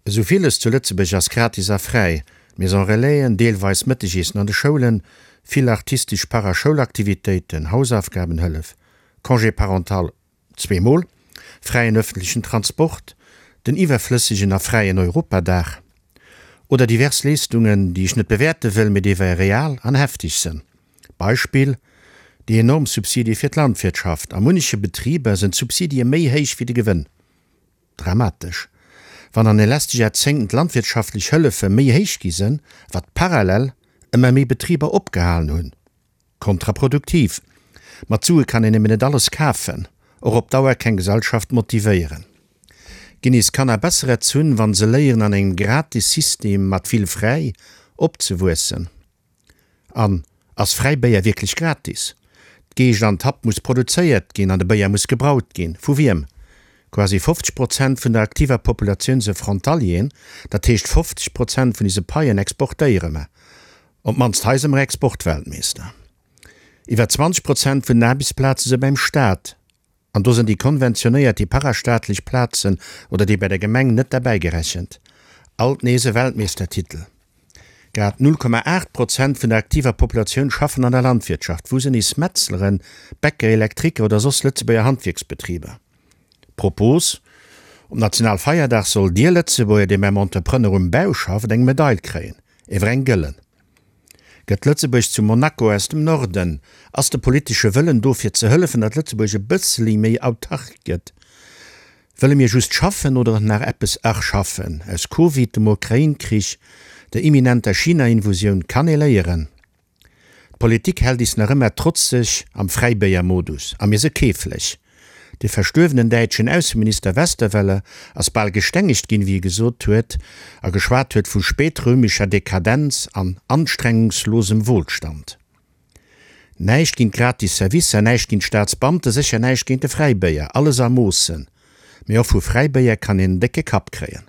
Esou villes zu Lëtzebuerg ass gratis a fräi, Maison Relaisen, deelweis Mëttegiessen an de Schoulen, vill artistesch Paraschoulaktivitéiten, Hausaufgabenhëllef, Congé parental zweemol, fräien ëffentlechen Transport, den iwwerflëssegen a fräien Europadag oder divers Leeschtungen, déi ech net bewäerte wëll, mee déi wei real an heftig sënn. Beispill, déi enorm Subsidie fir d'Landwirtschaft. A munneche Betriber sënn d'Subsidie méi héich wéi de Gewënn. Dramatesch, wann an de leschte Jaerzéngten d'landwirtschaftlech Hëllefe méi héich gi sënn, wat parallel ëmmer méi Betriber opgehalen hunn. Kontraproduktiv. Mat Sue kann een nëmmen net alles kafen, och op Dauer keng Gesellschaft motivéieren. Ginn is Kanner besser erzunn, wann se léieren an engem gratis System mat vill fräi opzewuessen? An ass fräi Béier wierklech gratis? D'Geescht an d'Happ muss produzéiert ginn an de Béier muss gebraut ginn. Vu wiem? Quasi 50 Prozent vun der aktiver Populatioun se Frontalieren, dat heescht 50 Prozent vun ise Paien exportéiere mer. Op d'mannst hei se mer Exportweltmeester. Iwwer 20 Prozent vun den Aarbechtsplaze se beim Staat. An do sinn déi konventionéiert, déi parastaatlech Plazen oder déi bei der Gemeng net derbäi gerechent. Alt nees e Weltmeeschtertitel. Grad 0,8 Prozent vun der aktiver Populatioun schaffen an der Landwirtschaft. Wou sinn is Metzleren, Bäcker, Elektriker oder soss Lëtzebuerger Handwierksbetriber? Propos, Um Nationalfeierdag soll dir Lëtzebuerger, dee beim Entrepreneur um Bau schafft, eng Medail kréien, ewer eng gëllen. Gëtt Lëtzebuerg zu Monaco aus dem Norden? Ass de politesche Wëllen do fir ze hëllefen, datt Lëtzebuerg e bësseli méi autark gëtt? Wëlle mir just schaffen oder nach eppes erschaffen? Aus Covid, dem Ukrain-Krich, der imminenter China-Invusioun kann ee léieren. D'Politik hält is nach ëmmer trotzeg am Fräibéier-Modus a mir se keeflech. De verstuerwenen däitschen Ausseminister Westerwelle ass bal gestengegt ginn, wéi e gesot huet a geschwat huet vu spätrömischer Dekadenz an anstrengungslosem Wohlstand. Näischt géint gratis Servicer, näischt géint Staatsbeamte, sécher näischt géint de Fräibéier, alles a Moossen. Mee och vu Fräibéier kann een en décke Kapp kréien.